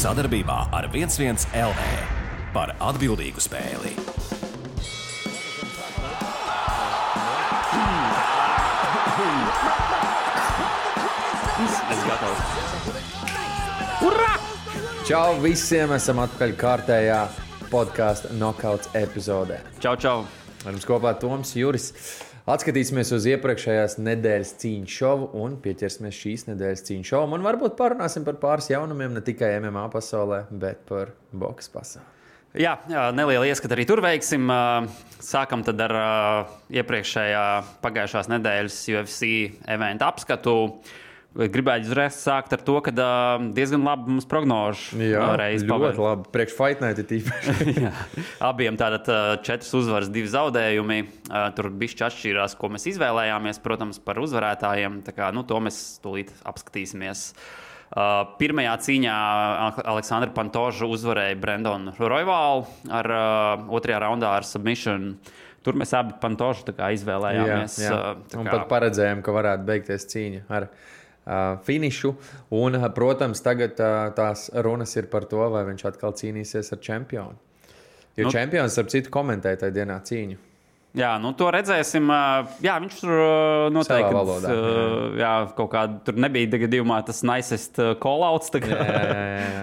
Sadarbībā ar 11 LV par atbildīgu spēli. Es gatavs. Urā! Čau visiem! Esam atpakaļ kārtējā podkāstu Knockouts epizodē. Čau, čau! Ar mums kopā Toms Juris. Atskatīsimies uz iepriekšējās nedēļas cīņu šovu un pieķersimies šīs nedēļas cīņu šovam. Un varbūt parunāsim par pāris jaunumiem, ne tikai MMA pasaulē, bet par boks pasaulē. Jā, neliela ieskata arī tur veiksim. Sākam tad ar iepriekšējā pagājušās nedēļas UFC eventu apskatu. Gribētu uzreiz sākt ar to, ka diezgan labi mums prognožu reizi pavērt. Ļoti labi. Priekš Fight Night ir tīpaši. Abiem tātad 4 uzvaras, 2 zaudējumi. Tur bišķi atšķīrās, ko mēs izvēlējāmies, protams, par uzvarētājiem. Tā kā, to mēs tūlīt apskatīsimies. Pirmajā cīņā Aleksandra Pantoža uzvarēja Brandonu Royvalu ar otrajā raundā ar submission. Tur mēs abi Pantožu izvēlējāmies. Jā. Un pat paredzējām, ka varētu beigties cīņa ar finišu. Un, protams, tagad tās runas ir par to, vai viņš atkal cīnīsies ar čempionu. Jo čempions, starp citu, komentēja tajā dienā cīņu. Jā, to redzēsim. Jā, viņš tur noteikti savā valodā. Jā, kaut kāda tur nebija gadījumā tas nicest call-outs. Jā.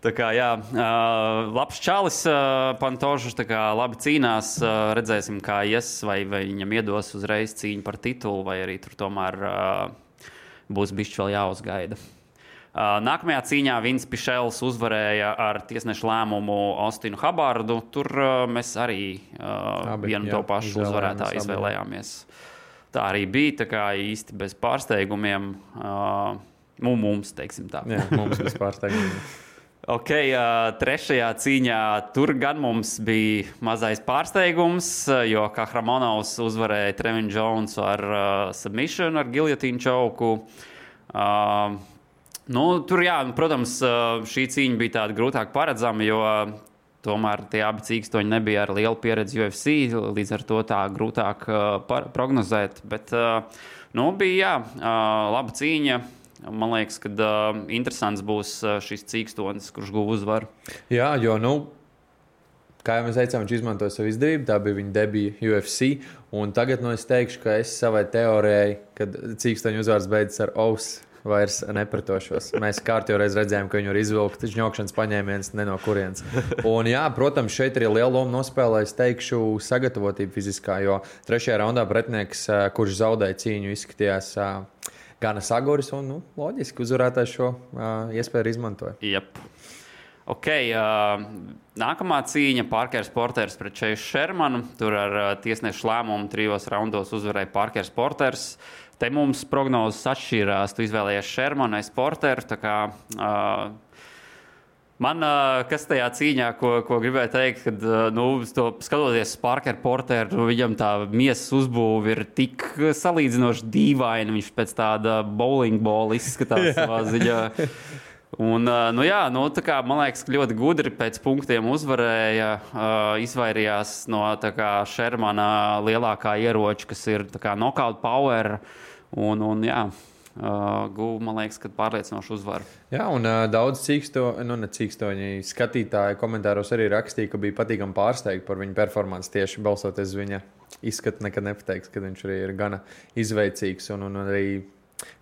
Tā kā, jā, labs čalis, Pantožs, labi cīnās. Redzēsim, kā ies, vai viņam iedos uzreiz cīņu par titulu, vai arī tur tomēr būs bišķi vēl jāuzgaida. Nākamajā cīņā Vins Pišels uzvarēja ar tiesnešu lēmumu Austinu Habardu. Tur mēs arī vienu to pašu uzvarētāju izvēlējāmies. Tā arī bija, tā kā īsti bez pārsteigumiem. Mums, teiksim tā. Jā, mums bez pārsteigumiem. Ok, trešajā cīņā tur gan mums bija mazais pārsteigums, jo Kahramonovs uzvarēja Trevin Jonesu ar submission, ar giljotīnu čauku. Tur, jā, protams, šī cīņa bija tāda grūtāk paredzama, jo tomēr tie abi cīkstoņi nebija ar lielu pieredzi UFC, līdz ar to tā grūtāk prognozēt. Bet, bija, laba cīņa. Man liekas, ka interesants būs šis cīkstonis, kurš guva uzvaru. Jā, jo, kā jau mēs teicām, viņš izmantoja savu izdevību. Tā bija viņa debija UFC. Un tagad es teikšu, ka es savai teorijai, kad cīkstoņu uzvaras beidzas ar ausu, vairs nepratošos. Mēs kārtīgi reiz redzējām, ka viņu var izvilkt žņokšanas paņēmiens ne no kurienes. Un, jā, protams, šeit arī liela loma nospēlē, es teikšu, sagatavotība fiziskā, jo trešajā raundā pretinieks, kurš zaudēja cīņu, izskatījās gana saguris un, loģiski, uzvarētājs šo iespēju izmantoja. Jep. Ok, nākamā cīņa Parkers Porters pret Chase Shermanu. Tur ar tiesnešu lēmumu 3 raundos uzvarēja Parkers Porters. Te mums prognozes atšķīrās. Tu izvēlējies Shermanu, es Porteru. Tā kā man, kas tajā cīņā, ko gribēju teikt, kad, skatoties Parker Porteru, viņam tā miesas uzbūve ir tik salīdzinoši dīvaina. Viņš pēc tāda bowling bola izskatās savā ziņā. Un, tā kā, man liekas, ka ļoti gudri pēc punktiem uzvarēja, izvairījās no Shermana lielākā ieroča, kas ir knockout power. Un guva, man liekas, ka pārliecinoši uzvaru. Jā, un daudz cīkstoņi skatītāji komentāros arī rakstīja, ka bija patīkami pārsteigti par viņa performanci tieši balsoties uz viņa izskatu. Nekad nepateiks, ka viņš arī ir gana izveicīgs un arī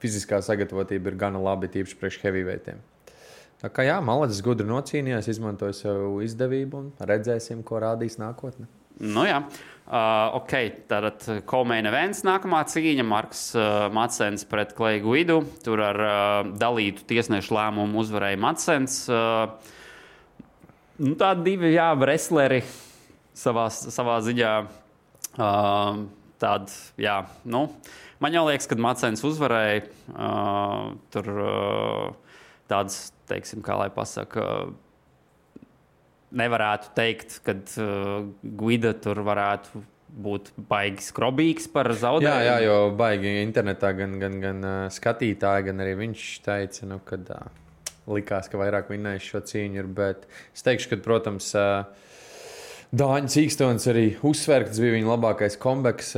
fiziskā sagatavotība ir gana labi, tīpaši priekš heavyweightiem. Tā kā jā, Malacis gudri nocīnījās, izmantoja savu izdevību un redzēsim, ko rādīs nākotne. Jā. Ok, tātad co-main events nākamā cīņa. Marks Madsens pret Clay Guidu. Tur ar dalītu tiesnešu lēmumu uzvarēja Madsens. Tādi divi, wrestleri savā ziņā. Man jau liekas, ka Madsens uzvarēja. Tur tāds, teiksim, kā lai pasaka, nevarētu teikt, ka Guida tur varētu būt baigi skrobīgs par zaudējumu. Jā, jo baigi internetā gan skatītāji, gan arī viņš teica, kad likās, ka vairāk vinnējis šo cīņu ir. Bet es teikšu, ka, protams, Dāņa Cīkstons arī uzsver, ka tas bija viņa labākais comebacks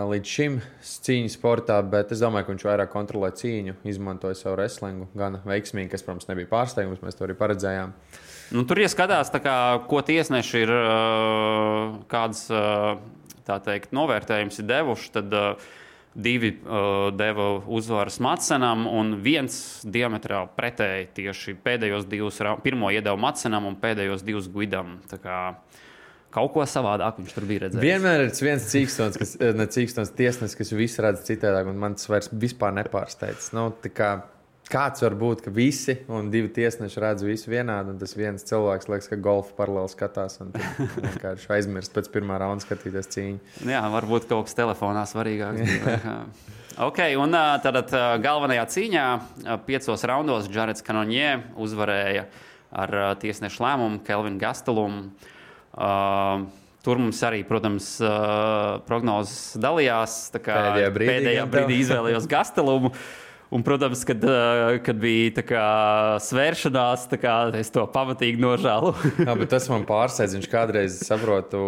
līdz šim cīņu sportā, bet es domāju, ka viņš vairāk kontrolē cīņu, izmantoja savu wrestlingu gan veiksmīgi, kas, protams, nebija pārsteigums, mēs to arī paredzējām. Nu, tur ieskatās, ko tiesneši ir kāds, tā teikt, novērtējums ir devuši, tad divi deva uzvaras Madsenam un viens diametrāli pretēji tieši pēdējos divus, pirmo iedeva Madsenam un pēdējos divus Guidam. Tā kā kaut ko savādāk viņš tur bija redzējis. Vienmēr ir viens Cīkstons tiesnesis, kas visu redz citādāk, un man tas vairs vispār nepārsteidz. Nu, kāds var būt, ka visi un divi tiesneši redz visu vienādi, un tas viens cilvēks liekas, ka golfa paralēli skatās un vienkārši aizmirst pēc pirmā raunda skatīties cīņu. Jā, varbūt kaut kas telefonā svarīgāks. Ok, un tad galvenajā cīņā 5 raundos Jareds Cannonier uzvarēja ar tiesnešu lēmumu Kelvinu Gastelumu. Tur mums arī, protams, prognozes dalījās. Pēdējā brīdī izvēlējos Gastelumu. Un, protams, kad bija svēršanās, es to pamatīgi nožēlu. Jā, bet tas man pārsteidz. Viņš kādreiz, saprotu,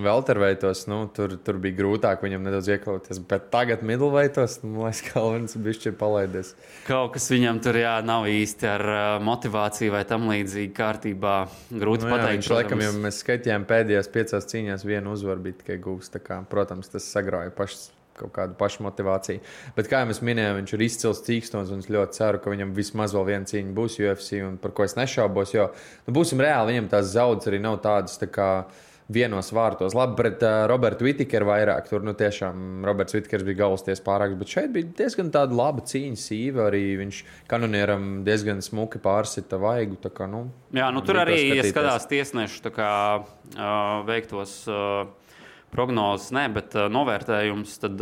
welterveitos, tur bija grūtāk viņam nedaudz iekļauties. Bet tagad middleveitos, liekas, Kalvins bišķi ir palaidies. Kaut kas viņam tur nav īsti ar motivāciju vai tam līdzīgi kārtībā. Grūti pateikt. Viņš laikam, ja mēs skaitījām pēdējās 5 cīņās, vienu uzvaru bija tikai gūs. Protams, tas sagrauja kaut kādu pašmotivāciju. Bet, kā jau mēs minējām, viņš ir izcils Cīkstons, un es ļoti ceru, ka viņam vismaz vēl viena cīņa būs UFC, un par ko es nešaubos, jo, būsim reāli, viņam tās zaudas arī nav tādas vienos vārtos. Labi, pret Robertu Whittakeru vairāk, tur, tiešām Roberts Whittakers bija galvasties pārāks, bet šeit bija diezgan tāda laba cīņa sīva, arī viņš Cannonieram diezgan smuki pārsita vaigu, Jā, tur arī ieskatās tiesnešu, veiktos prognozes, bet novērtējums tad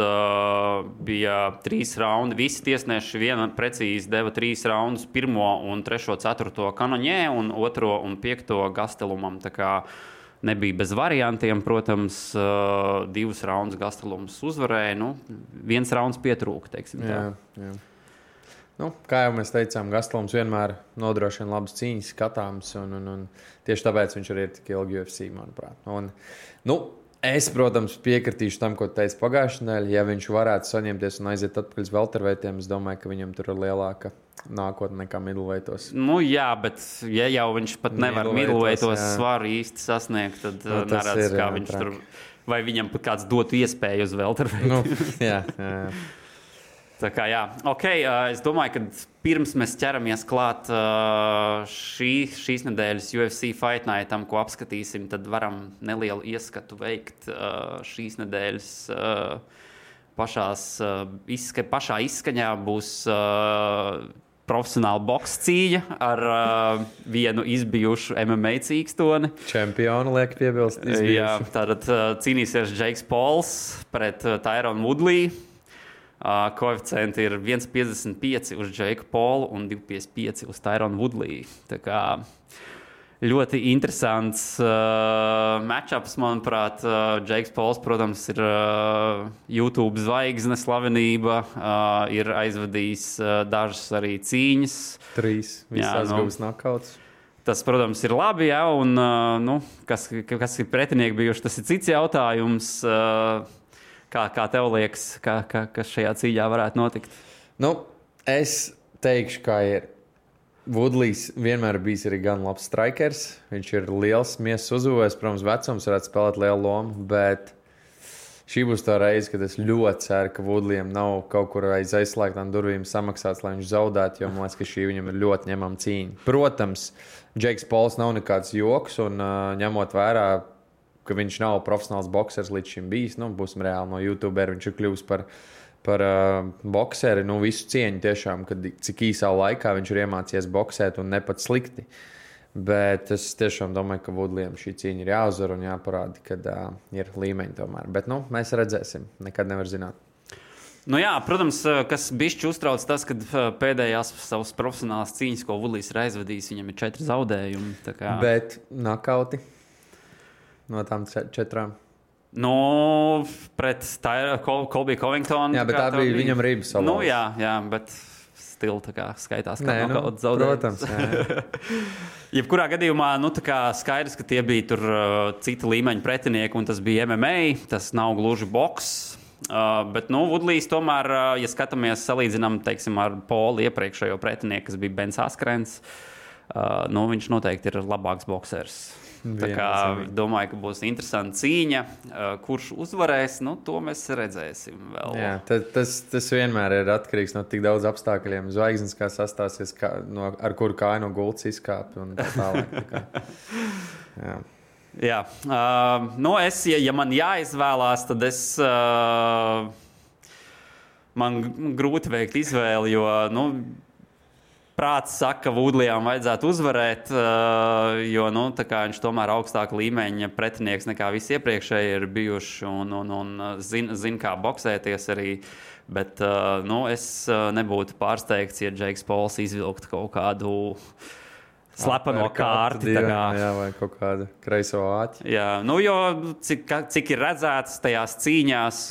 bija 3 raundi. Visi tiesneši precīzi deva 3 raundus, 1, 3, 4 Cannonier un 2 un 5 Gastelumam. Tā kā nebija bez variantiem, protams, 2 raundus Gastelums uzvarēja, 1 rauns pietrūka, teiksim tā. Jā. Kā jau mēs teicām, Gastelums vienmēr nodrošina labas cīņas, skatāms, un tieši tāpēc viņš arī ir tik ilgi UFC, manuprāt. Es, protams, piekritīšu tam, ko teica pagājušajā nedēļā. Ja viņš varētu saņemties un aiziet atpakaļ uz welterveitiem, es domāju, ka viņam tur ir lielāka nākotne nekā middleveitos. Jā, bet ja jau viņš pat nevar middleveitos svaru īsti sasniegt, tad neredz, kā viņš tur, vai viņam pat kāds dotu iespēju uz welterveitiem. Jā. Tā kā jā, ok, es domāju, ka pirms mēs ķeramies klāt šīs nedēļas UFC Fight Nightam, ko apskatīsim, tad varam nelielu ieskatu veikt šīs nedēļas pašā izskaņā būs profesionāla boks cīņa ar vienu izbijušu MMA cīkstoni. Čempionu liek piebilst. Jā, tātad cīnīsies Jakes Pauls pret Tyrone Woodley. Koeficienti ir 1,55 uz Jake'u Paulu un 2,55 uz Tyrone Woodley. Tā kā ļoti interesants matchups, manuprāt. Jakes Pauls, protams, ir YouTube zvaigzne, slavenība, ir aizvadījis dažas arī cīņas. 3 visās guvas knockouts. Tas, protams, ir labi, jā, un kas ir pretinieki bijuši, tas ir cits jautājums. Kā tev liekas, kas šajā cīņā varētu notikt? Es teikšu, kā ir. Woodleys vienmēr bijis arī gan labs strikers. Viņš ir liels, miesas uzvojis. Protams, vecums varētu spēlēt lielu lomu, bet šī būs tā reize, kad es ļoti ceru, ka Woodleyam nav kaut kur aiz aizslēgtām durvīm samaksāts, lai viņš zaudētu, jo man liekas, ka šī viņam ir ļoti ņemama cīņa. Protams, Jakes Pauls nav nekāds joks, un ņemot vērā, ka viņš nav profesionāls boksers līdz šim bijis. Būsim reāli, no YouTuber viņš ir kļuvis par bokseri. Visu cieņu tiešām, cik īsā laikā viņš ir iemācījies boksēt un ne pat slikti. Bet es tiešām domāju, ka Woodleyam šī cīņa ir jāuzvar un jāparāda, kad ir līmeņi tomēr. Bet mēs redzēsim, nekad nevar zināt. Protams, kas bišķi uztrauc tas, kad pēdējās savas profesionālās cīņas, ko Woodleys ir aizvadījis, viņam ir 4 zaudējumi. Bet knockouti? No tām 4. Pret Colby Covington. Jā, bet tā bija viņam rība salauzt. Jā, bet stila skaitās kā Nē, nokauts zaudējums. Protams. Jebkurā gadījumā skaidrs, ka tie bija tur cita līmeņa pretinieki, un tas bija MMA, tas nav gluži boks. Bet Woodlijs tomēr, ja skatāmies, salīdzinām, teiksim, ar Polu iepriekšējo pretinieku, kas bija Bens Askrens, viņš noteikti ir labāks boksers. Tā kā domāju, ka būs interesanta cīņa. Kurš uzvarēs, to mēs redzēsim vēl. Jā, tas vienmēr ir atkarīgs no tik daudz apstākļiem. Zvaigznes, kā sastāsies, ar kuru kāju no gultas izkāpj un tā tālāk. Jā. Ja man jāizvēlās, tad man grūti veikt izvēli, jo, prāts saka, ka Woodlijam vajadzētu uzvarēt, jo viņš tomēr augstāka līmeņa pretinieks nekā visi iepriekšēji ir bijuši un zina, kā boksēties arī. Bet es nebūtu pārsteigts, ja Džeiks Pols izvilktu kaut kādu slepeno kārti. Jā, vai kaut kādu kreiso āķi. Jā, jo cik ir redzēts tajās cīņās,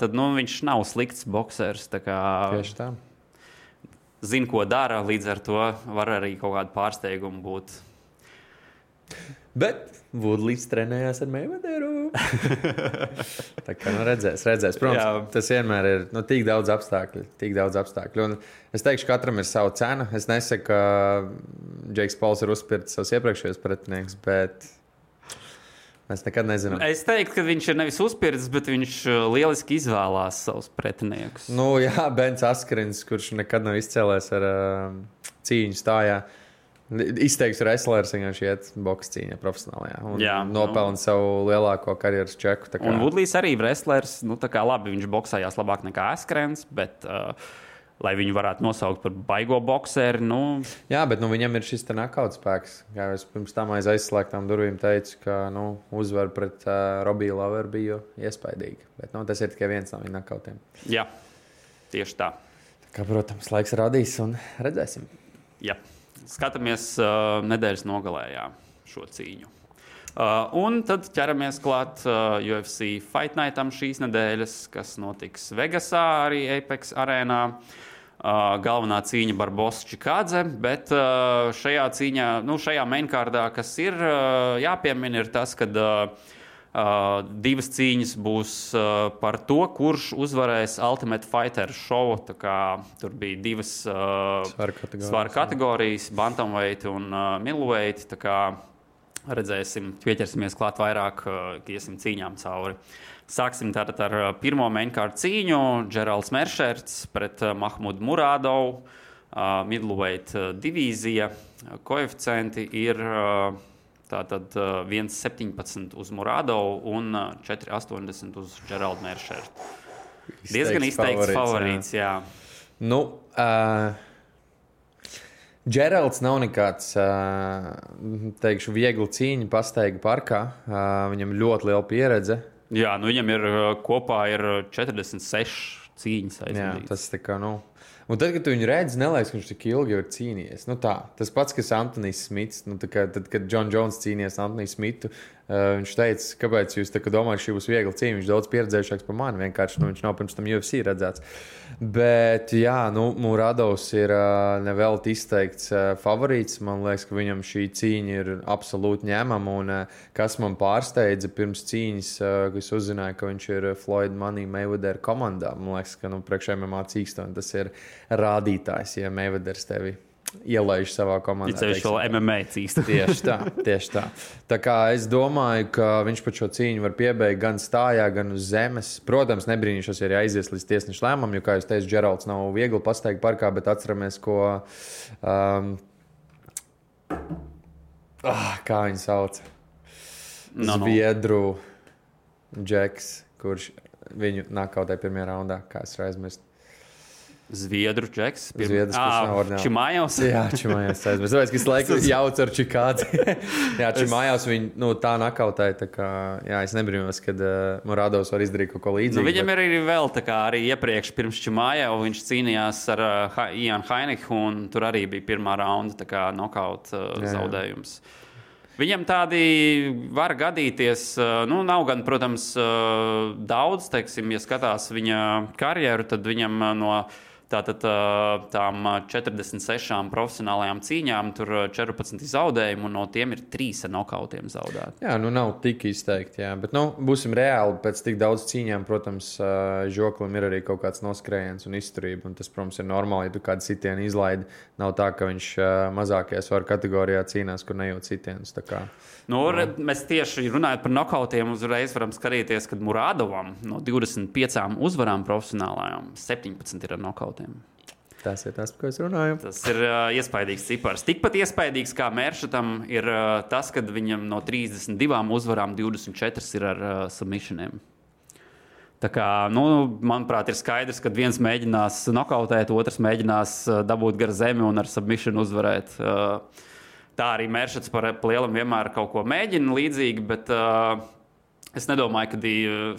tad viņš nav slikts boksers. Tieši tā. Zina, ko dara, līdz ar to var arī kaut kādu pārsteigumu būt. Bet Woodlijs trenējās ar Mayweatheru. Tā kā redzēs. Protams, tas vienmēr ir tik daudz apstākļu. Un es teikšu, ka katram ir sava cena. Es nesaku, ka Džeiks Pols ir uzspirts savus iepriekšējos pretinieks, bet mēs nekad nezinām. Es teiktu, ka viņš ir nevis uzspirts, bet viņš lieliski izvēlās savus pretiniekus. Bens Askrins, kurš nekad nav izcēlēs ar cīņu stājā. Izteikts wrestlers, viņš iet boks cīņā profesionālajā. Un nopelna savu lielāko karjeras čeku. Un Woodlijs arī wrestlers. Labi, viņš boksējās labāk nekā Askrins, bet lai viņu varētu nosaukt par baigo bokseri. Jā, bet viņam ir šis knockout spēks. Kā es pirms tam aiz aizslēgtām durvīm teicu, ka uzvara pret Robiju Laueru bija iespaidīga. Bet tas ir tikai viens no viņa knockoutiem. Jā, tieši tā. Protams, laiks radīs un redzēsim. Jā. Skatāmies nedēļas nogalē šo cīņu. Un tad ķeramies klāt UFC Fight Nightam šīs nedēļas, kas notiks Vegasā, arī Apex arēnā. Galvenā cīņa Barbosa Čikādze, bet šajā cīņā, šajā mainkārdā, kas ir jāpiemina, ir tas, ka divas cīņas būs par to, kurš uzvarēs Ultimate Fighter šovu. Tur bija divas svaru kategorijas, bantamweight un middleweight. Redzēsim, pieķersimies klāt vairāk, iesim cīņām cauri. Sāksim tātad ar pirmo mainkārdu cīņu. Džeralds Meršerts pret Mahmudu Murādovu. Middleweight divīzija. Koeficienti ir tātad 1,17 uz Murādovu un 4,80 uz Džeraldu Meršertu. Diezgan izteikts favorīts, jā. Džeralds nav nekāds, teikšu, viegli cīņa pastaiga parkā. Viņam ļoti liela pieredze. Jā, viņam ir kopā 46 cīņas aizvadītas. Jā, tas tā kā, Un tad, kad tu viņu redzi, neliekas, ka viņš tik ilgi ir cīnījies. Tas pats, kas Antonijs Smits. Tad, kad John Jones cīnījās Antoniju Smitu, viņš teica, kāpēc jūs domājat, šī būs viegla cīņa. Viņš daudz pieredzējušāks par mani. Vienkārši viņš nav pirms tam UFC redzēts. Bet, jā, Muradovs ir nevelti izteikts favorīts. Man liekas, ka viņam šī cīņa ir absolūti ņemama. Un kas man pārsteidza pirms cīņas, kad es uzzināju, ka viņš ir Floyd Money Mayweather komandā. Man liekas, ka priekš MMA cīkstoni tas ir rādītājs, ja Mayweathers tevi ielaiž savā komandā. Viņš vēl MMA cīkst. Tieši tā. Tā kā es domāju, ka viņš pat šo cīņu var piebeigt gan stājā, gan uz zemes. Protams, nebrīnīšos, ja aizies līdz tiesneša lēmumam, jo, kā jūs teicu, Džeralds nav viegli pasteigt parkā, bet atceramies, ko kā viņu sauc? Zviedru Džeks, kurš viņu nakautē pirmajā raundā, kā es aizmirstu. Zviedru Džeks. Čimājos. Jā, Čimājos. Es domāju, ka es laiku jaucu ar Čikādzi. Jā, Čimājos viņu tā nakautēja. Tā kā, jā, es nebrīnos, kad Muradovs var izdarīt kaut ko līdzīgu. Viņam ir arī vēl tā kā arī iepriekš pirms Čimājau viņš cīnījās ar Ianu Hainiku un tur arī bija pirmā raunda tā kā nokaut zaudējums. Viņam tādi var gadīties, nav gan, protams, daudz, teiksim, ja skatās viņa karjeru, tad viņam no Tātad tām 46 profesionālajām cīņām tur 14 zaudējumu, un no tiem ir 3 ar nokautiem zaudēti. Jā, nav tik izteikti, jā. Bet, būsim reāli, pēc tik daudz cīņām, protams, žoklim ir arī kaut kāds noskrējiens un izturība, un tas, protams, ir normāli, ja tu kādu sitienu izlaidi. Nav tā, ka viņš mazākajā svaru kategorijā cīnās, kur nejūt sitienus. Mēs tieši runājot par nokautiem, uzreiz varam skatīties, kad Muradovam no 25 uzvarām profesionālajām 17 ir ar nokautiem. Tas ir tas, par ko es runāju. Tas ir iespaidīgs cipars. Tikpat iespaidīgs kā Mēršatam ir tas, kad viņam no 32 uzvarām 24 ir ar submissioniem. Tā kā, manuprāt, ir skaidrs, ka viens mēģinās nokautēt, otrs mēģinās dabūt gar zemi un ar submission uzvarēt. Tā arī Mēršats par lielam vienmēr kaut ko mēģina līdzīgi, bet es nedomāju, ka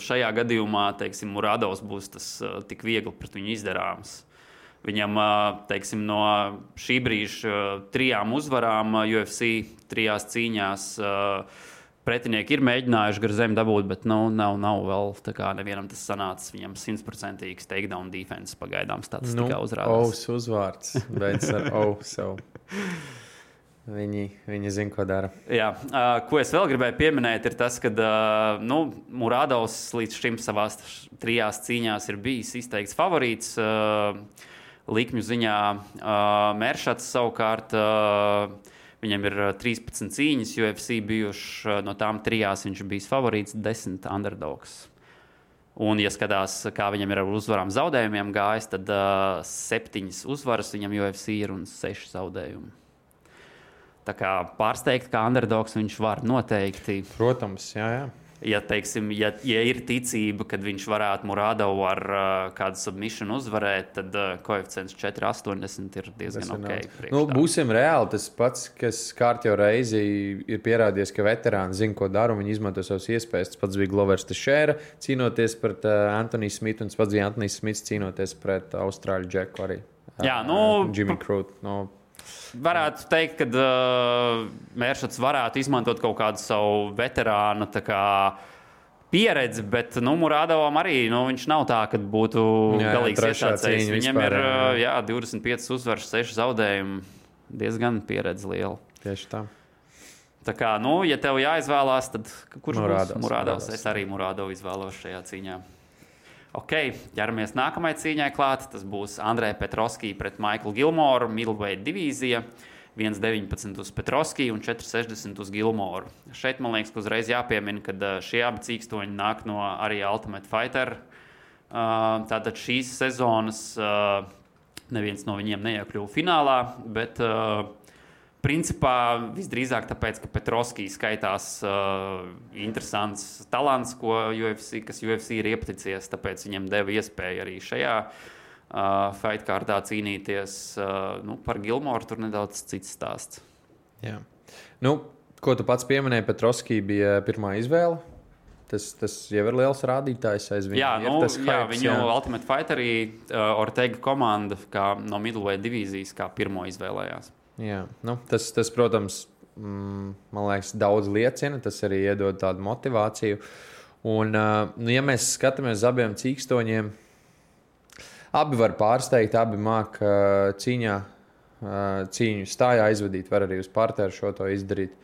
šajā gadījumā, teiksim, Muradovs būs tas tik viegli pret viņu izdarāms. Viņam, teiksim, no šī brīža 3 uzvarām UFC 3 cīņās pretinieki ir mēģinājuši gar zemi dabūt, bet nav vēl tā kā nevienam tas sanācis. Viņam 100% takedown defense pagaidām statistikā uzrādās. Ous uzvārds, beidz ar Ousu. Viņi zina, ko dara. Jā, ko es vēl gribēju pieminēt, ir tas, ka Muradovs līdz šim savās 3 cīņās ir bijis izteikts favorīts. Likmju ziņā Mēršats savukārt, viņam ir 13 cīņas UFC bijuši, no tām 3 viņš bijis favorīts, 10 underdogs. Un, ja skatās, kā viņam ir ar uzvarām zaudējumiem gājis, tad 7 uzvaras viņam UFC ir un 6 zaudējumi. Tā kā pārsteigt, kā underdogs viņš var noteikti. Protams, jā. Ja, teiksim, ja ir ticība, kad viņš varētu Muradovu ar kādu submission uzvarēt, tad koeficients 4,80 ir diezgan ok. Būsim reāli, tas pats, kas kārtjo reizi ir pierādījies, ka veterāni zina, ko dara, un viņi izmanto savas iespējas. Tas pats bija Glovers Teixeira cīnoties pret Anthony Smithu, un tas pats bija Anthony Smiths cīnoties pret Austrāļu Džeku arī. Jā, Jimmy Crute. Varētu teikt, ka Mēršats varētu izmantot kaut kādu savu veterānu pieredzi, bet Muradovam arī viņš nav tā, ka būtu galīgs iesācējs. Viņam ir 25 uzvaras, 6 zaudējumi. Diezgan pieredze liela. Tieši tā. Tā kā, ja tev jāizvēlās, tad kurš būs Muradovs? Es arī Muradovu izvēlos šajā cīņā. Ok, ķeramies nākamajai cīņai klāt. Tas būs Andrei Petrovski pret Michaelu Gilmoru, middleweight divīzija. 1,19 uz Petrovski un 4,60 uz Gilmoru. Šeit man liekas, ka uzreiz jāpiemina, ka šie abi cīkstoņi nāk no arī Ultimate Fighter. Tātad šīs sezonas neviens no viņiem neiekļuva finālā, bet principā visdrīzāk tāpēc, ka Petrovski skaitās interesants talants, kas UFC ir iepaticies, tāpēc viņam deva iespēju arī šajā fightkārtā cīnīties. Par Gilmoru tur nedaudz cits stāsts. Jā. Ko tu pats pieminēji, Petrovski bija pirmā izvēle. Tas jau ir liels rādītājs aiz viņa. Viņu Ultimate Fighterī Ortega komanda no middleweight divīzijas kā pirmo izvēlējās. Jā, tas, protams, man liekas, daudz liecina. Tas arī iedod tādu motivāciju. Un, ja mēs skatāmies uz abiem cīkstoņiem, abi var pārsteigt, abi māk cīņu stājā aizvadīt, var arī uz parteru šo to izdarīt.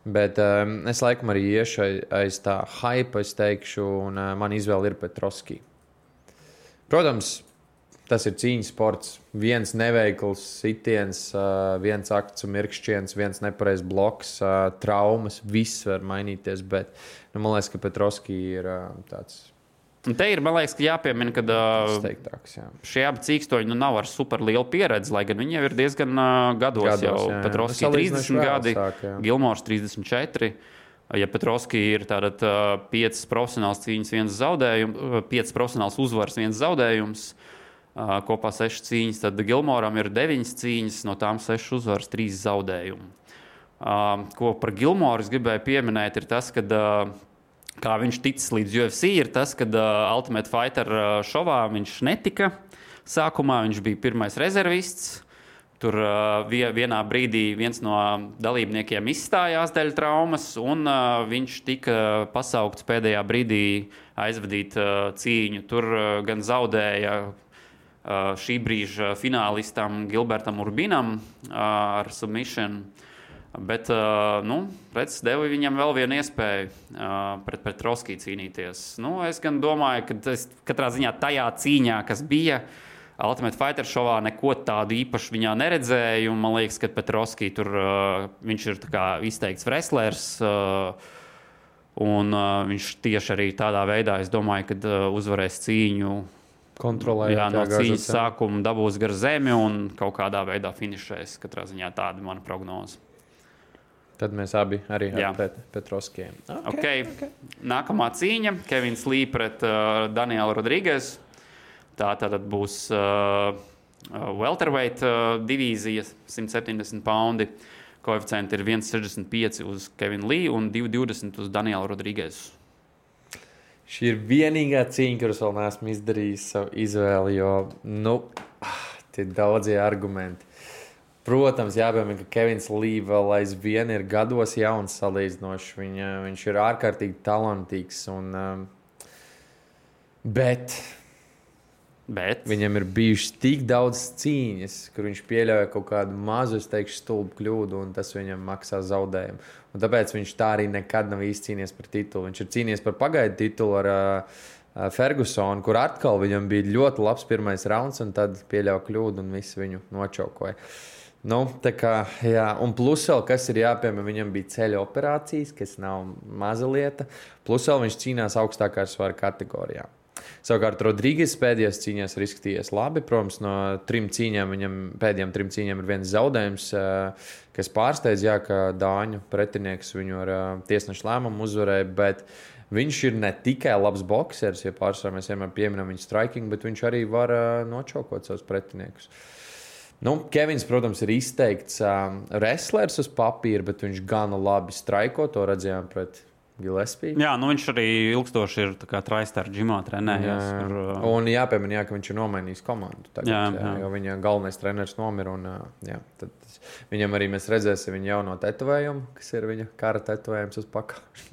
Bet es laikam arī iešu aiz tā hype, es teikšu, un man izvēle ir Petrovski. Protams, tas ir cīņas sports. Viens neveikls sitiens, viens akts un mirkšķiens, viens nepareizs bloks, traumas, viss var mainīties. Bet man liekas, ka Petrovski ir tāds. Un te ir, man liekas, ka jāpiemina, ka šie abi cīkstoņi nav ar super lielu pieredzi, lai gan viņi jau ir diezgan gados jau. Petrovski 30 gadi, Gilmors 34. Ja Petrovski ir 5 profesionāls cīņas, 1 zaudējums, 5 profesionāls uzvaras, 1 zaudējums, kopā 6 cīņas, tad Gilmoram ir 9 cīņas, no tām 6 uzvaras, 3 zaudējumi. Ko par Gilmoru es gribēju pieminēt, ir tas, ka kā viņš ticis līdz UFC, ir tas, ka Ultimate Fighter šovā viņš netika. Sākumā viņš bija pirmais rezervists. Tur vienā brīdī viens no dalībniekiem izstājās dēļ traumas, un viņš tika pasaukts pēdējā brīdī aizvadīt cīņu. Tur gan zaudēja šī brīža finālistam Gilbertam Urbinam ar submission. Bet, redz, deva viņam vēl vienu iespēju pret Petrovski cīnīties. Es gan domāju, ka katrā ziņā tajā cīņā, kas bija Ultimate Fighter šovā, neko tādu īpaši viņā neredzēju. Un man liekas, ka Petrovski tur viņš ir tā kā izteikts wrestlers. Un viņš tieši arī tādā veidā, es domāju, ka uzvarēs cīņu. Kontrolējot. No cīņas sākuma dabūs gar zemi un kaut kādā veidā finišēs. Katrā ziņā tāda mana prognoze. Tad mēs abi arī ar Petrovskiem. Okay. Nākamā cīņa – Kevins Lee pret Danielu Rodriguez. Tā tad būs welterweight divīzija, 170 poundi. Koeficienti ir 1,65 uz Kevinu Lee un 2,20 uz Danielu Rodriguez. Šī ir vienīgā cīņa, kuras vēl neesmu izdarījis savu izvēli, jo, tie daudzie argumenti. Protams, jāpiemina, ka Kevins Lee vēl aizvien ir gados jauns salīdzinoši. Viņš ir ārkārtīgi talantīgs. Bet viņam ir bijušas tik daudz cīņas, kur viņš pieļauja kaut kādu mazu, stulbu kļūdu, un tas viņam maksā zaudējumu. Un tāpēc viņš tā arī nekad nav īsti cīnījies par titulu. Viņš ir cīnījies par pagaidu titulu ar Fergusonu, kur atkal viņam bija ļoti labs pirmais rauns, un tad pieļauja kļūdu, un visi viņu nočaukoja. Tā kā, jā, un plus vēl, kas ir jāpiemēr, viņam bija ceļa operācijas, kas nav maza lieta. Plus vēl viņš cīnās augstākā svara kategorijā. Savukārt Rodriguez pēdējās cīņās ir izskatījies labi. Protams, no pēdējām 3 cīņām ir viens zaudējums, kas pārsteidz, ka Dāņu pretinieks viņu ar tiesnešu lēmumu uzvarēja, bet viņš ir ne tikai labs boksers, ja pārsvarā mēs vienmēr pieminam viņu striking, bet viņš arī var nočaukot savus pretiniekus. Kevins, protams, ir izteikts wrestlers uz papīra, bet viņš gana labi straiko, to redzējām pret Gillespie. Jā, viņš arī ilgstoši ir TriStar džimā trenējies. Un jāpiemina, ka viņš ir nomainījis komandu tagad, jo viņa galvenais treneris nomira. Tad viņam arī mēs redzēsim viņa jauno tetovējumu, kas ir viņa kara tetovējums uz pakauša.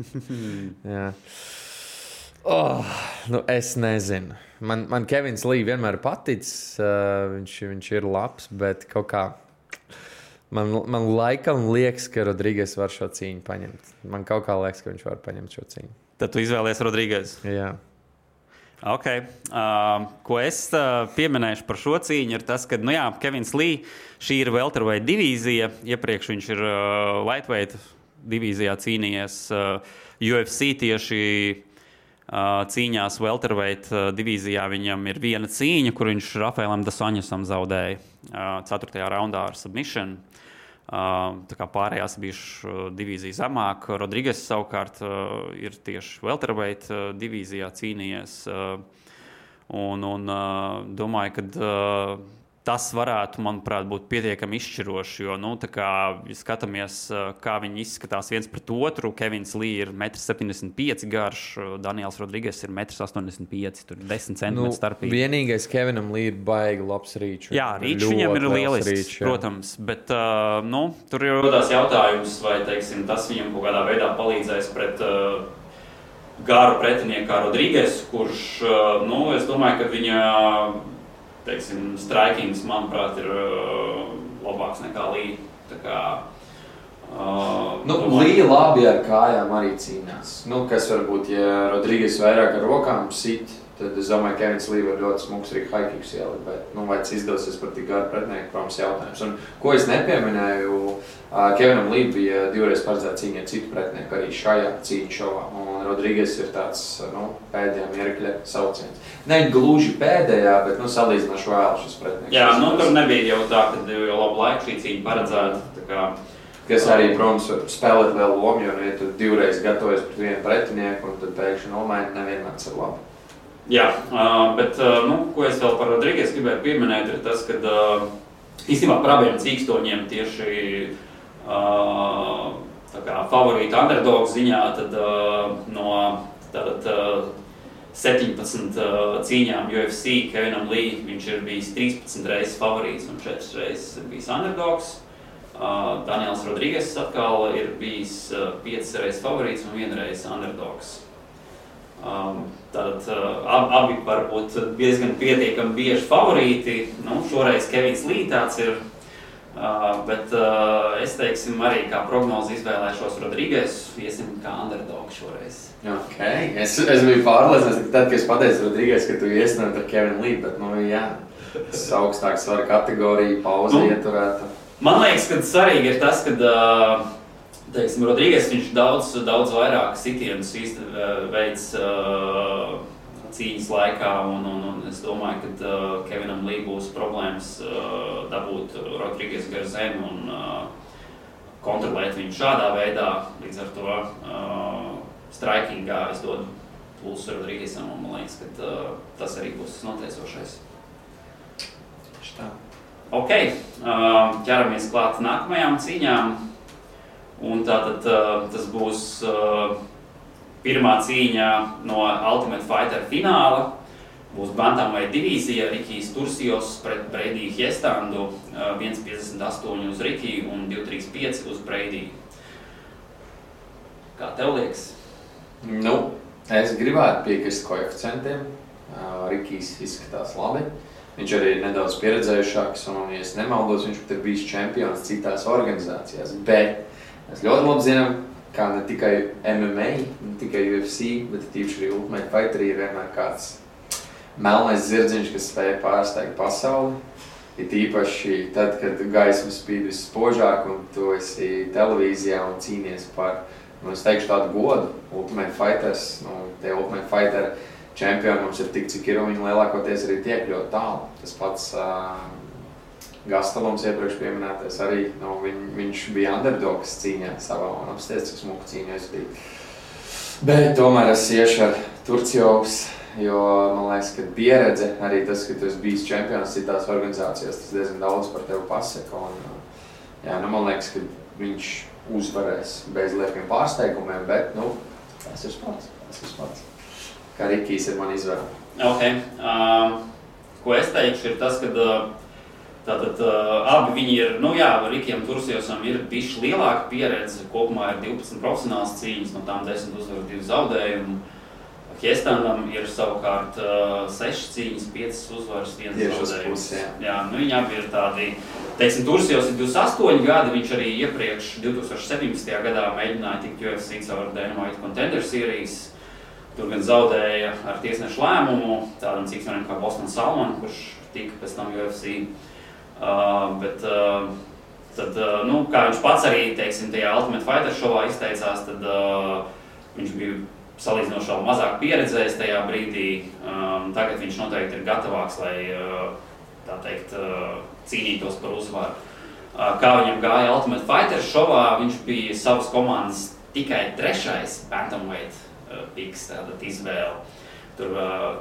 Es nezinu. Man Kevins Lee vienmēr paticis, viņš ir labs, bet kaut kā man laikam liekas, ka Rodriguez var šo cīņu paņemt. Man kaut kā liekas, ka viņš var paņemt šo cīņu. Tad tu izvēlies Rodriguez? Jā. Ok. Ko es pieminēšu par šo cīņu ir tas, ka, Kevins Lee, šī ir welterweight divīzija. Iepriekš viņš ir lightweight divīzijā cīnījies UFC tieši cīņās welterweight divīzijā. Viņam ir viena cīņa, kur viņš Rafaelam Dasoņasam zaudēja 4. raundā ar submission. Tā kā pārējās bijušas divīzija zemāk. Rodriguez savukārt ir tieši welterweight divīzijā cīnījies. Un domāju, ka tas varētu, manuprāt, būt pietiekami izšķiroši, jo, tā kā, ja skatāmies, kā viņi izskatās viens pret otru, Kevins Lee ir 1,75 m garš, Daniels Rodriguez ir 1,85 m, tur 10 cm starpība. Vienīgais Kevinam Lee ir baigi labs rīčs. Jā, rīčs viņam ir lielisks, protams, bet, tur ir rodās jautājums, vai, teiksim, tas viņam kaut kādā veidā palīdzēs pret garu pretinieku kā Rodriguez, kurš, es domāju, ka viņa strikings, manuprāt, ir labāks nekā Lee. Tā kā, Lee labi ar kājām arī cīnās. Kas varbūt, ja Rodriguez vairāk ar rokām sit, tad es domāju, ka Kevins Lee var ļoti smuks arī high kicks ielikt, bet, vai tas izdosies par tik garu pretinieku, protams, jautājums. Un, ko es nepieminēju, Kevinam Lee bija 2 reizes paredzēta cīņa ar citu pretinieku arī šajā cīņu šovā. Un Rodriguez ir tāds, pēdējā mirkļa sauciens. Ne gluži pēdējā, bet, salīdzinoši vēl šis pretinieks. Jā, tur nebija jau tā, ka jau labu laiku šī cīņa paredzēta. Kas arī, protams, spēlēt lielu lomu, jo, ja tu 2 reizes gatavojies pret vienu pretinieku un tad pēkšņi nomaini, nevienmēr ir labi. Jā, bet, ko es vēl par Rodriguez gribēju pieminēt, ir tas, ka īstenībā par abiem cīkstoņiem tieši favorīta underdog ziņā, tad no 17 cīņām UFC Kevinam Lee viņš ir bijis 13 reizes favorīts un 4 reizes ir bijis underdogs. Daniels Rodriguez atkal ir bijis 5 reizes favorīts un 1 reize underdogs. Tad abi var būt diezgan pietiekami bieži favorīti. Šoreiz Kevins Lī tāds ir. Bet es teiksim arī kā prognozi izvēlēšos Rodrīges, iesim kā underdog šoreiz. Okay. Es biju pārliecināts, ka tad, kad es pateicu Rodrīges, ka tu iesnēji ar Kevinu Lī, bet tas augstāk svara kategorija, pauze ieturēta. Man liekas, ka svarīgi ir tas, ka teiksim, Rodrīges viņš daudz vairāk sitienus veids cīņas laikā, un es domāju, ka Kevinam Lī būs problēmas dabūt Rodrīges gar zemi un kontrolēt viņu šādā veidā. Līdz ar to strikingā es dodu plusu Rodrīgesam, un man liekas, ka tas arī būs noteicošais. Ok, ķeramies klāt nākamajām cīņām, un tātad tas būs pirmā cīņa no Ultimate Fighter fināla. Būs bantamweight divīzija, Rikijs Turcios pret Brady Hiestandu, 1,58 uz Rikiju un 2,35 uz Brady. Kā tev liekas? Es gribētu piekrist koeficientiem. Rikijs izskatās labi. Viņš arī ir nedaudz pieredzējušāks, un, ja es nemaldos, viņš pat ir bijis čempions citās organizācijās. Bet mēs ļoti labi zinām, kā ne tikai MMA, ne tikai UFC, bet tīpaši arī Ultimate Fighter ir vienmēr kāds melnais zirdziņš, kas spēja pārsteigt pasauli. Ir tīpaši tad, kad gaisma spīd visspožāk un tu esi televīzijā un cīnies par, es teikšu tādu godu, Ultimate Fighters, tie Ultimate Fighter čempioni mums ir tik, cik ir, un viņi lielākoties arī tiek ļoti tālu. Tas pats Gastelums iepriekš pieminētais arī, viņš bija underdogs cīņā savā un apstiets, cik smuku cīņā izvadīt. Bet tomēr es iešu ar Turcios, jo man liekas, ka pieredze, arī tas, ka tu esi bijis čempions citās organizācijās, tas diezgan daudz par tevi pasaka. Un, man liekas, ka viņš uzvarēs bez liekiem pārsteigumiem, bet, tas ir sports. Kā Rikijs ir man izvēle. Ok. Ko es teikšu, ir tas, ka tātad abi viņi ir, Rikijam Turciosam ir bišķi lielāka pieredze, kopumā ir 12 profesionāls cīņas, no tām 10 uzvaru 2 zaudējumu. Hiestandam ir savukārt 6 cīņas, 5 uzvaras, 1 zaudējums. Viņi abi ir tādi, teiksim, Turcios ir 28 gadi, viņš arī iepriekš 2017. gadā mēģināja tikt UFC caur Dynamite Contender Series. Tur gan zaudēja ar tiesnešu lēmumu, tādam cīksmenim kā Boston Salman, kurš tika pēc tam UFC. Tad, kā viņš pats arī, teiksim, tajā Ultimate Fighter šovā izteicās, tad viņš bija salīdzinoši vēl mazāk pieredzējis tajā brīdī. Tagad viņš noteikti ir gatavāks, lai, tā teikt, cīnītos par uzvaru. Kā viņam gāja Ultimate Fighter šovā, viņš bija savas komandas tikai 3. bantamweight piks, tātad izvēle. Tur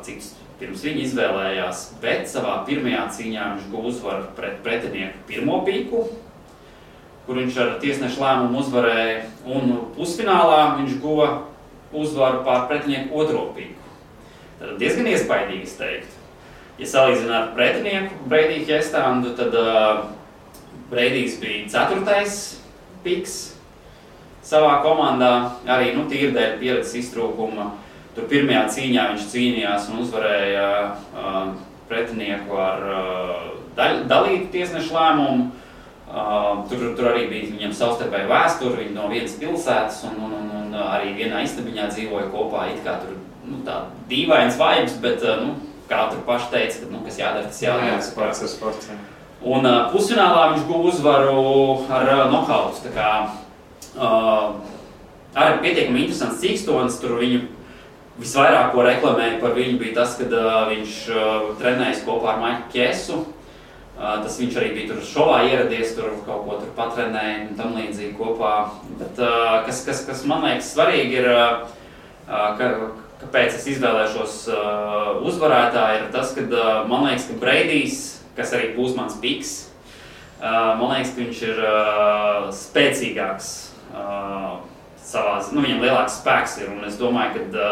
cik pirms viņa izvēlējās, bet savā pirmajā cīņā viņš guva uzvaru pret pretinieku pirmo piku, kur viņš ar tiesnešu lēmumu uzvarēja, un pusfinālā viņš guva uzvaru pār pretinieku otro piku. Tad diezgan iespaidīgi, es teiktu. Ja salīdzinā ar pretinieku Brady Hiestandu, tad Bradijs bija 4. piks savā komandā, arī tīri dēļ pieredzes iztrūkuma. Tur pirmajā cīņā viņš cīnījās un uzvarēja pretinieku ar dalītu tiesnešu lēmumu. Tur arī bija viņam savstarpēja vēsture, viņi no vienas pilsētas un arī vienā istabiņā dzīvoja kopā. It kā tur tā dīvains vibes, bet kā tur paši teica, ka kas jādara, tas jādara. Sports. Un pusfinālā viņš guva uzvaru ar nokautu. Tā kā arī pietiekami interesants cīkstonis, tur viņu visvairāk, ko reklamēja par viņu, bija tas, kad viņš trenējas kopā ar Maiku Kiesu. Tas viņš arī bija tur šovā ieradies, tur kaut ko tur patrenēja un tam līdzīgi kopā. Bet kas man liekas svarīgi ir, kāpēc es izvēlēšos uzvarētāju, ir tas, ka man liekas, ka Bradijs, kas arī būs mans piks, man liekas, ka viņš ir spēcīgāks savās, viņam lielāks spēks ir, un es domāju, ka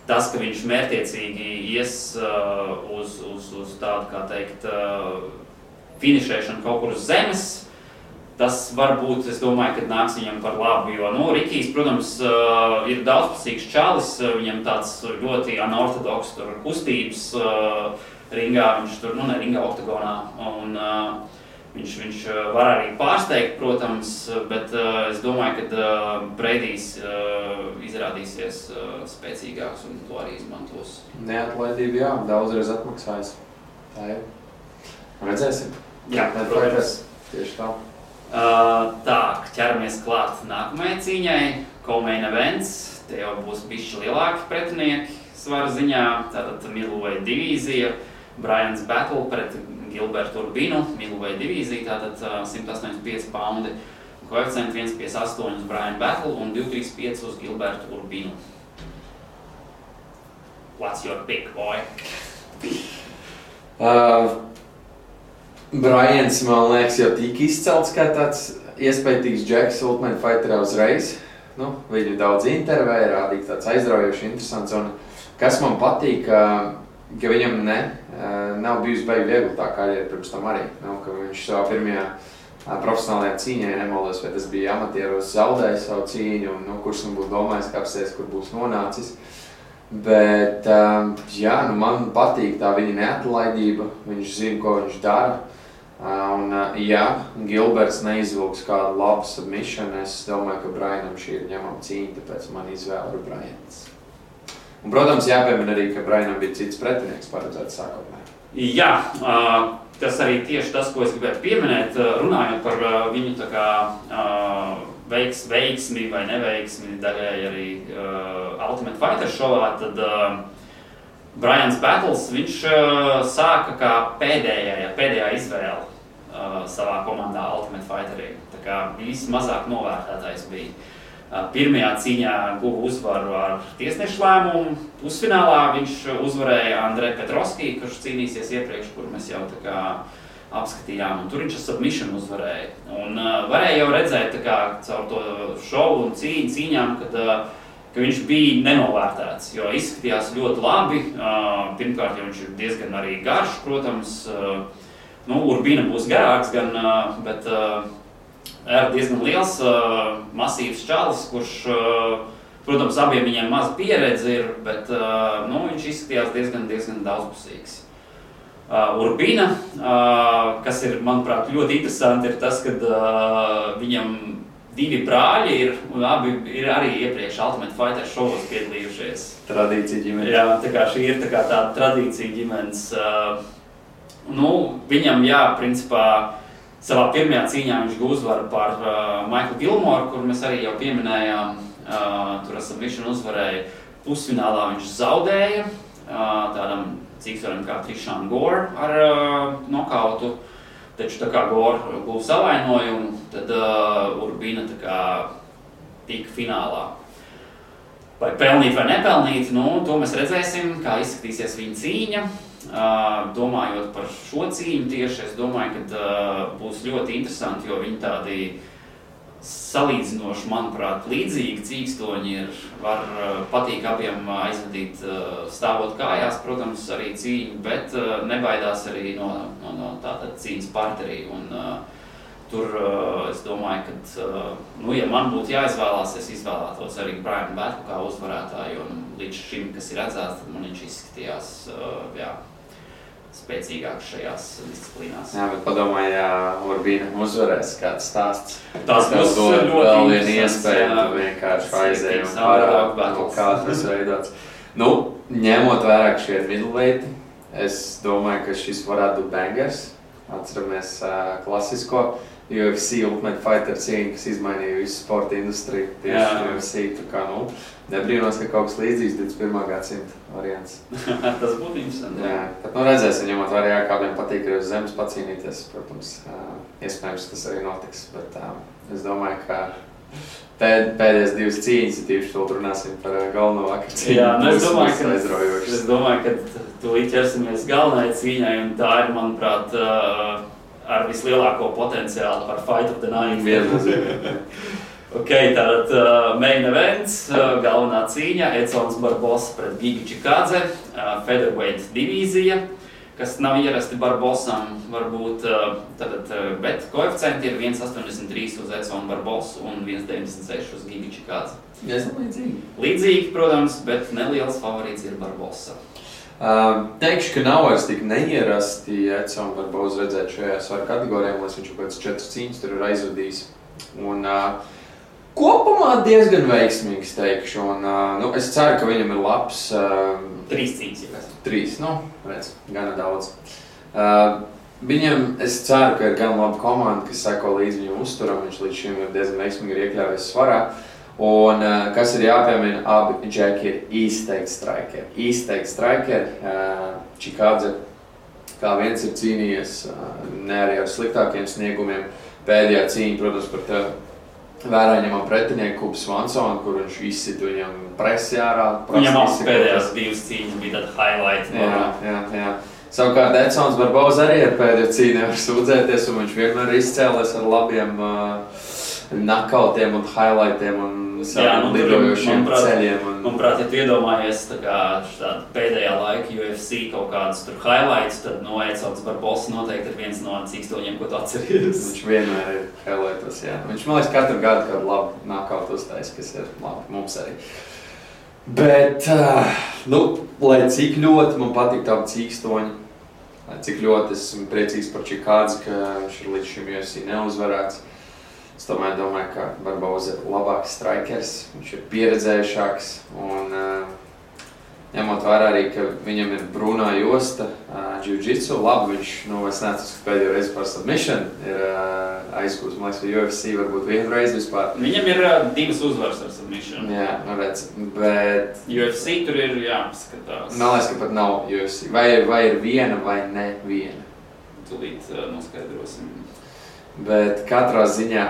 tas, ka viņš mērķiecīgi ies uz tādu, kā teikt, finišēšanu kaut kur uz zemes, tas varbūt, es domāju, ka nāks viņam par labu, jo, Rikijs, protams, ir daudzpusīgs čalis, viņam tāds ļoti anortodoks kustības ringā, viņš tur, ne ringā, oktagonā, un viņš var arī pārsteigt, protams, bet es domāju, ka Breidijs izrādīsies spēcīgāks un to arī izmantos. Neatlaidība, jā, daudzreiz atmaksājas. Tā ir. Redzēsim. Jā, protams. Tieši tā. Tā, ķeramies klāt nākamajai cīņai. Co-main events. Te jau būs bišķi lielāki pretinieki svara ziņā. Tātad middleweight divīzija. Brians Battle pret Gilbertu Urbinu. Middleweight divīzija, tātad 185 paundi. Koeficienti 1,58 uz Brian Battle un 2,35 uz Gilbertu Urbinu. What's your pick, boy? Brians, man liekas, jau tika izcelts kā tāds iespējīgs džeks Ultimate Fighterā uzreiz. Viņu daudz intervēja, rādīja tāds aizraujoši interesants. Un kas man patīk, ka viņam nav bijusi baigi viegli tā karjera pirms tam arī. Ka viņš savā pirmajā profesionālajā cīņā, nemaldos, vai tas bija amatieros, zaudēja savu cīņu, un kurš man būtu domājis, ka apsēs, kur būs nonācis. Bet, man patīk tā viņa neatlaidība, viņš zina, ko viņš dara. Un, Gilberts neizvilks kādu labu submission, es domāju, ka Brianam šī ir ņemama cīņa, tāpēc man izvēle ir Brians. Un, protams, jāpiemina arī, ka Brianam bija cits pretinieks paredzēts sākotnē. Jā, tas arī tieši tas, ko es gribētu pieminēt, runājot par viņu tā kā veiksmi vai neveiksmi daļai arī Ultimate Fighter šovā, tad Brians Battles, viņš sāka kā pēdējā izvēle savā komandā Ultimate Fighterī. Tā kā vismazāk novērtētais bija. Pirmajā cīņā guva uzvaru ar tiesnešu lēmumu. Pusfinālā viņš uzvarēja Andreju Petrovski, kurš cīnīsies iepriekš, kur mēs jau tā kā apskatījām, un tur viņš ar submission uzvarēja. Un varēja jau redzēt tā kā caur to šovu un cīņām, ka viņš bija nenovērtēts, jo izskatījās ļoti labi. Pirmkārt, jo viņš ir diezgan arī garš, protams. Urbina būs garāks, bet ir diezgan liels, masīvs čalis, kurš, protams, abiem viņiem maz pieredze ir, bet viņš izskatījās diezgan daudzpusīgs. Urbina, kas ir, manuprāt, ļoti interesanti, ir tas, ka viņam divi brāļi ir, un abi ir arī iepriekš Ultimate Fighter šovos piedalījušies. Tradīcija ģimenes. Jā, tā kā šī ir tā kā tāda tradīcija ģimenes. Viņam, principā, savā pirmajā cīņā viņš guva uzvaru par Michaelu Gilmoru, kur mēs arī jau pieminējām. Tur ar submission uzvarēja. Pusfinālā viņš zaudēja tādam cīkstoram kā Trishan Gore ar nokautu. Taču tā kā Gore guva savainojumu, tad Urbina tā kā tika finālā. Vai pelnīt vai nepelnīt, to mēs redzēsim, kā izskatīsies viņa cīņa. Domājot par šo cīņu tieši, es domāju, ka būs ļoti interesanti, jo viņi tādi salīdzinoši, manuprāt, līdzīgi cīkstoņi ir. Var patīk abiem aizvadīt stāvot kājās, protams, arī cīņu, bet nebaidās arī no tātad cīņas partnerī. Un tur es domāju, ka, ja man būtu jāizvēlās, es izvēlētos arī Brian Battle kā uzvarētāju, un līdz šim, kas ir redzēts, tad man viņš izskatījās, spēcīgāks šajās disciplīnās. Jā, bet padomāju, ja Urbina uzvarēs kāds stāsts. Tas būs ļoti vēl viena iespēja, tu vienkārši aizēji un parādi, kā tas veidots. Ņemot vērā, ka šie ir middleweighi, es domāju, ka šis varētu būt bangers. Atceramies klasisko UFC Ultimate Fighter cīņu, kas izmainīja visu sporta industriju. Tieši UFC, tā kā, nebrīnos, ka kaut kas līdzīgs 21. gadsimta variants. Tas būtu interesanti. Jā, bet redzēsim, ņemot vērā, kādiem patīk arī uz zemes pacīnīties. Protams, iespējams, tas arī notiks, bet es domāju, ka pēdējās divas cīņas, tīpaši vēl runāsim par galveno vakar cīņu. Jā, es domāju, ka tūlīt ķersimies galvenai cīņai, un tā ir, manuprāt, ar vislielāko potenciālu par Fight of the Night. Viennozīmīgi. Tātad main events, galvenā cīņa, Edsons Barbosa pret Giga Čikādze, featherweight divīzija. kas nav ierasti Barbosam, varbūt, bet koeficienti ir 1,83 uz Edsonu Barbosu un 1,96 uz Gigu Čikādzi. Līdzīgi, protams, bet neliels favorīts ir Barbosa. Teikšu, ka nav vairs tik neierasti Edsonu Barbosu redzēt šajā svaru kategorijā, lai viņš pēc 4 cīņas tur ir aizvadījis. Un kopumā diezgan veiksmīgs, teikšu. Un, es ceru, ka viņam ir labs. 3 cīņas, ja kas? 3, redz, gana daudz. Viņam, es ceru, ka ir gan laba komanda, kas seko līdz viņam uzturam. Viņš līdz šim ir diezgan veiksmīgi ir iekļāvies svarā. Un kas ir jāpiemina, abi džeki ir izteikti strikeri. Čikādze, kā viens ir cīnījies, ne arī ar sliktākiem sniegumiem. Pēdējā cīņa, protams, par tevi vērā ņemam pretinieku Kubu Svansonu, kur viņš izsit viņam presi ārā. Viņam pēdējās 2 cīņas bija tāda highlight. Jā. Savukārt Edsons Barbosa arī ar pēdējo cīņu nevar sūdzēties, un viņš vienmēr ir izcēlies ar labiem knockoutiem un highlightiem un saviem lidojošiem ceļiem. Manuprāt, ja tu iedomājies tāda pēdējā laika UFC kaut kādas tur highlights, tad Edsons Barbosa noteikti ir viens no cīkstoņiem, ko tu atceries. Viņš vienmēr ir highlightos, jā. Viņš, man liekas, katru gadu kādu labu knockout uztais, kas ir labi mums arī. Bet, lai cik ļoti man patīk tādi cīkstoņi, lai cik ļoti esmu priecīgs par Čikādzi, ka viņš ir līdz šim UFC neuzvarēts. Es tomēr domāju, ka Barbosa ir labāks strikers, viņš ir pieredzējušāks un ņemot vērā arī, ka viņam ir brūnā josta jiu-jitsu, labi viņš, es neatceros, ka pēdējo reizi par submission ir aizgūst, man liekas, ka UFC varbūt vienu reizi vispār. Viņam ir 2 uzvaras ar submission. Jā, redz, bet... UFC tur ir jāskatās. Man liekas, ka pat nav UFC. Vai ir viena vai ne viena? Tūlīt noskaidrosim. Bet katrā ziņā,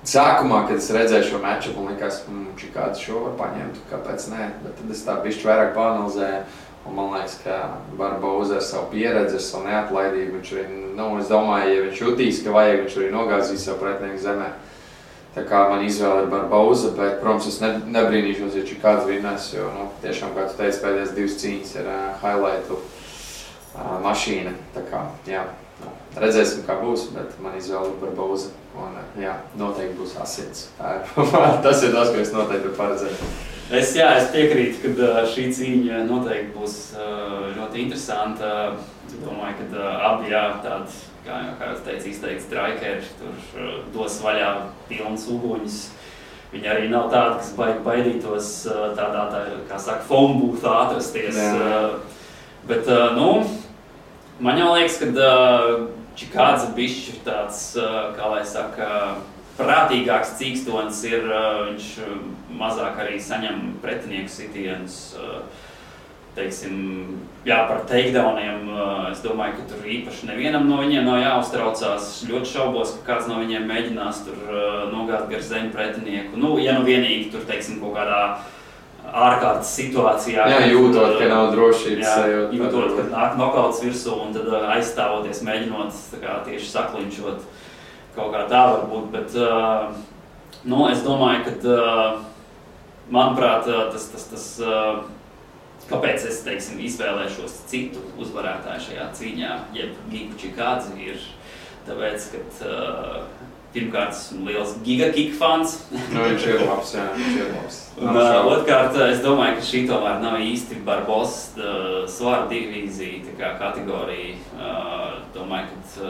sākumā, kad es redzēju šo matchupu, man likās, Čikādze šo var paņemt, kāpēc nē, bet tad es tā bišķi vairāk paanalizēju, un man liekas, ka Barbosa ar savu pieredzi, ar savu neatlaidību, viņš arī, es domāju, ja viņš jutīs, ka vajag, viņš arī nogāzīs savu pretinieku zemē. Tā kā man izvēle ir Barbosa, bet, protams, es nebrīnīšos, ja Čikādze vinnēs, jo, tiešām, kā tu teici, pēdējās 2 cīņas ir highlightu mašīna, tā kā, jā. Redzēsim, kā būs, bet man izvēle ir Barbosa. Un, jā, noteikti būs asins. Tas ir tas, ko es noteikti varu paredzēt. Es piekrītu, ka šī cīņa noteikti būs ļoti interesanta. Domāju, ka abi tādi, kā jūs teicat, izteikti strikeri, tur dos vaļā pilns uguņus. Viņi arī nav tādi, kas baidītos tādā, kā saka, phone boothā atrasties. Bet, man jau liekas, ka Čikādze bišķi ir tāds, kā lai saka, prātīgāks cīkstonis ir, viņš mazāk arī saņem pretinieku sitienus, teiksim, par takedowniem. Es domāju, ka tur īpaši nevienam no viņiem nav jāuztraucās. Ļoti šaubos, ka kāds no viņiem mēģinās tur nogāt gar zemi pretinieku. Ja vienīgi tur, teiksim, kaut kādā ārkārtas situācijā. Jā, jūtot, ka nav drošības sajūta. Jūtot, ka nāk nokauts virsū un tad aizstāvoties, mēģinot tieši saklinčot. Kaut kā tā var būt, bet es domāju, ka, manuprāt, tas kāpēc es, teiksim, izvēlēšos citu uzvarētāju šajā cīņā, jeb Gigu Čikādzi ir tāpēc, ka pirmkārt, esmu liels Giga Kick fans. Viņš ir labs, jā, viņš ir labs. Un otrkārt, es domāju, ka šī tomēr nav īsti Barbosa svara divīzija, tā kā kategorija. Domāju, ka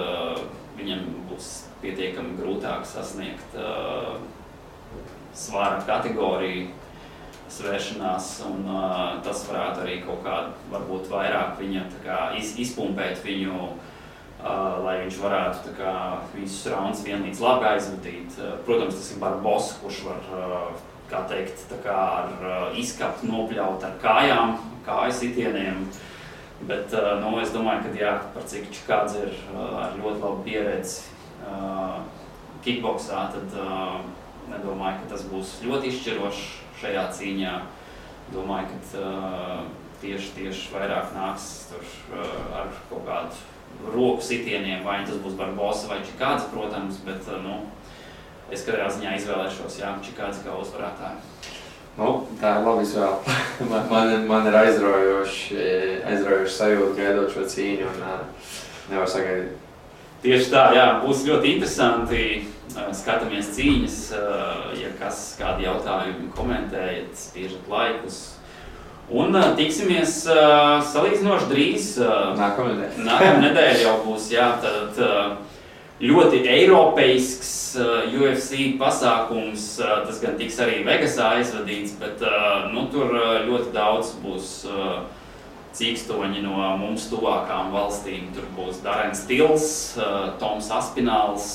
viņam būs pietiekami grūtāk sasniegt svara kategoriju svēršanās, un tas varētu arī kaut kādu, varbūt vairāk viņa tā kā izpumpēt viņu, lai viņš varētu visus raundus vienlīdz labi aizvadīt. Protams, tas ir Barbosa, kurš var, kā teikt, ar izskatu nopļaut ar kājām, kāju sitieniem. Bet es domāju, ka par cik Čikādze ir ar ļoti labu pieredzi kickboksā, tad nedomāju, ka tas būs ļoti izšķirošs šajā cīņā. Domāju, ka tieši vairāk nāks tur ar kaut kādu roku sitieniem, vai tas būs Barbosa vai Čikādze, protams, bet es katrā ziņā izvēlēšos Čikādzi kā uzvarētāju. Tā ir labi izvēle. man ir aizraujoši sajūta gaidot šo cīņu un nevar sagaidīt. Tieši tā, jā, būs ļoti interesanti. Skatāmies cīņas, ja kādi jautājumi komentējiet, spiežat laikus. Un tiksimies salīdzinoši drīz. Nākamā nedēļa jau būs, jā, tad ļoti eiropeisks UFC pasākums. Tas gan tiks arī Vegasā aizvadīts, bet tur ļoti daudz būs cīkstoņi no mums tuvākām valstīm. Tur būs Darens Tils, Toms Aspināls,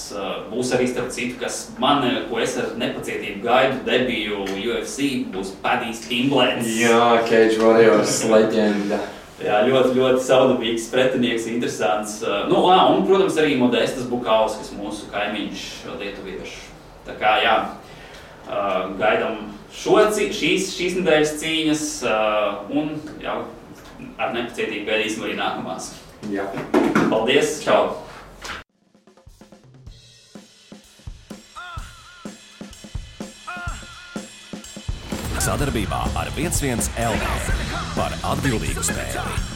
būs arī starp citu, ko es ar nepacietību gaidu debiju UFC, būs Padijs Pimblēns. Jā, Cage Warriors leģenda. Jā, ļoti, ļoti saudabīgs pretinieks, interesants. Un, protams, arī Modestas Bukaus, kas mūsu kaimiņš lietuviešu. Tā kā, jā, gaidam šīs nedēļas cīņas un jau ar nepacietību gaidīsim arī nākamās. Jā. Paldies, čau! Sadarbībā ar 11 LV par atbildīgu spēli.